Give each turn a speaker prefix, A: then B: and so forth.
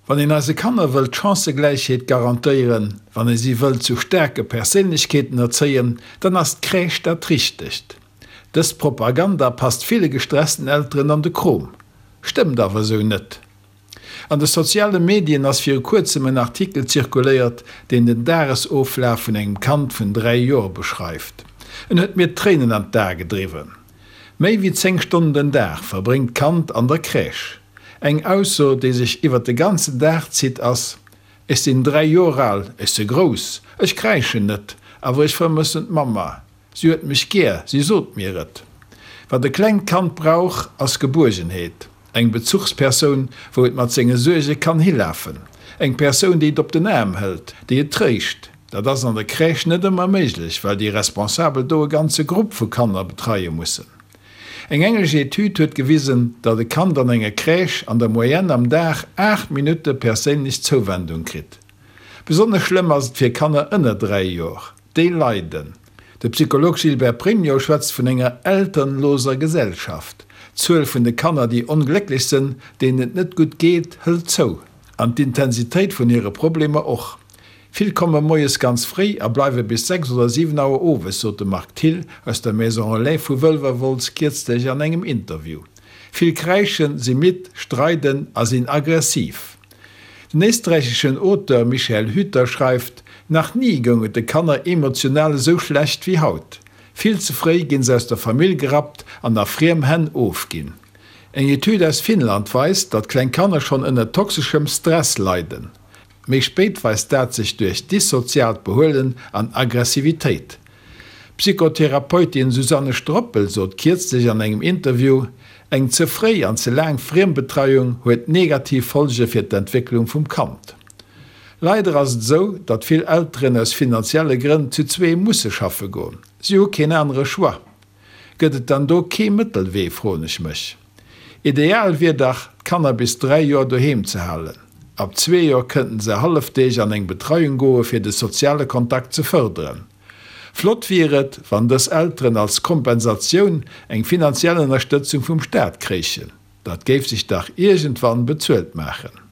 A: Wann een eise Kanner wëllt d'Chancëgläichheet garantéieren, wann ee si wëllt zu staarke Perséinlechkeeten erzéien, dann ass d'Crèche dat Richtegt. Dës Propaganda passt ville gestressten Elteren an de Krom. Stëmmt awer esou net. An de soziale Medien ass viru kuerzem en Artikel zirkuléiert, deen den Dagesoflaf vun engem Kand vun 3 Joer beschreift. En huet mir d'Tréinen an d'Ae gedriwwen. Méi wéi 10 Stonnen den Dag verbréngt d'Kand an der Crèche. Eng Ausso, déi sech iwwer de ganzen Dag zitt, ass, Ech sinn 3 Joer al, ech se grouss, ech kräischen net, awer ech vermëssen d'Mamma. Si huet mech gär, si sot mir et. Wat e klengt Kand brauch, ass Gebuergenheet, eng Bezuchspersoun, wou et mat senge Suerge kann hilafen, eng Persoun, déi et op den Aarm hëlt, déi et tréischt. Dat ass an der Crèche net ëmmer méiglech, well déi Responsabel do e ganze Grupp vu Kanner betreie mussen. Eng englesch Etüd huet gewisen, datt e Kand an enger Crèche an der Moyenne am Dag 8 Minutte perséinlech Zouwendung kritt. Besonnesch schlëmm ass et fir Kanner ënner 3 Joer. Déi leiden. De Psycholog Gilbert Pregno schwätzt vun enger elternloser Gesellschaft. D'Zuel vun de Kanner, déi onglécklech sënn, deenen et net gutt geet, hëlt zou. An d'Intensitéit vun hire Problemer och. Vill komme moies ganz fréi a bleiwe bis 6 oder 7 Auer owes, sot de Marc Thill aus der Maison Relais vu Wëlwerwolz kierzlech an engem Interview. Vill kräischen, si midd, streiden a sinn aggressiv. Den éisträicheschen Auteur Michael Hüter schreift, Nach ni goung et de Kanner emotional esou schlecht wéi haut. Vill ze fréi ginn se aus der Famill gerappt an a friem Hänn ofginn. Eng Etüd aus Finnland weist, datt kleng Kanner schonn ënner toxeschem Stress leiden. Méi spéit weist dat sech duerch dissoziaalt Behuelen an Aggressivitéit. D'Psychotherapeutin Susanne Stroppel sot kierzlech an engem Interview, Eng ze fréi an ze laang Friembetreiung huet negativ Folge fir d'Entwécklung vum Kand. Leider ass et esou, datt vill Elteren aus finanzielle Grënn zu zwee musse schaffe goen. Si hu keen anere Choix. Gëtt et dann do kee Mëttelwee, froen ech mech. Ideal wier dach, d'Kanner bis 3 Joer doheem ze halen. Ab zwee Joer kënnten se Hallefdeeg an eng Betreiung goe fir de soziale Kontakt ze fërderen. Flott wier et, wann dës Elteren als Kompensatioun eng finanziell Ënnerstëtzung vum Staat kréichen. Dat géif sech dach iergendwann bezuelt maachen.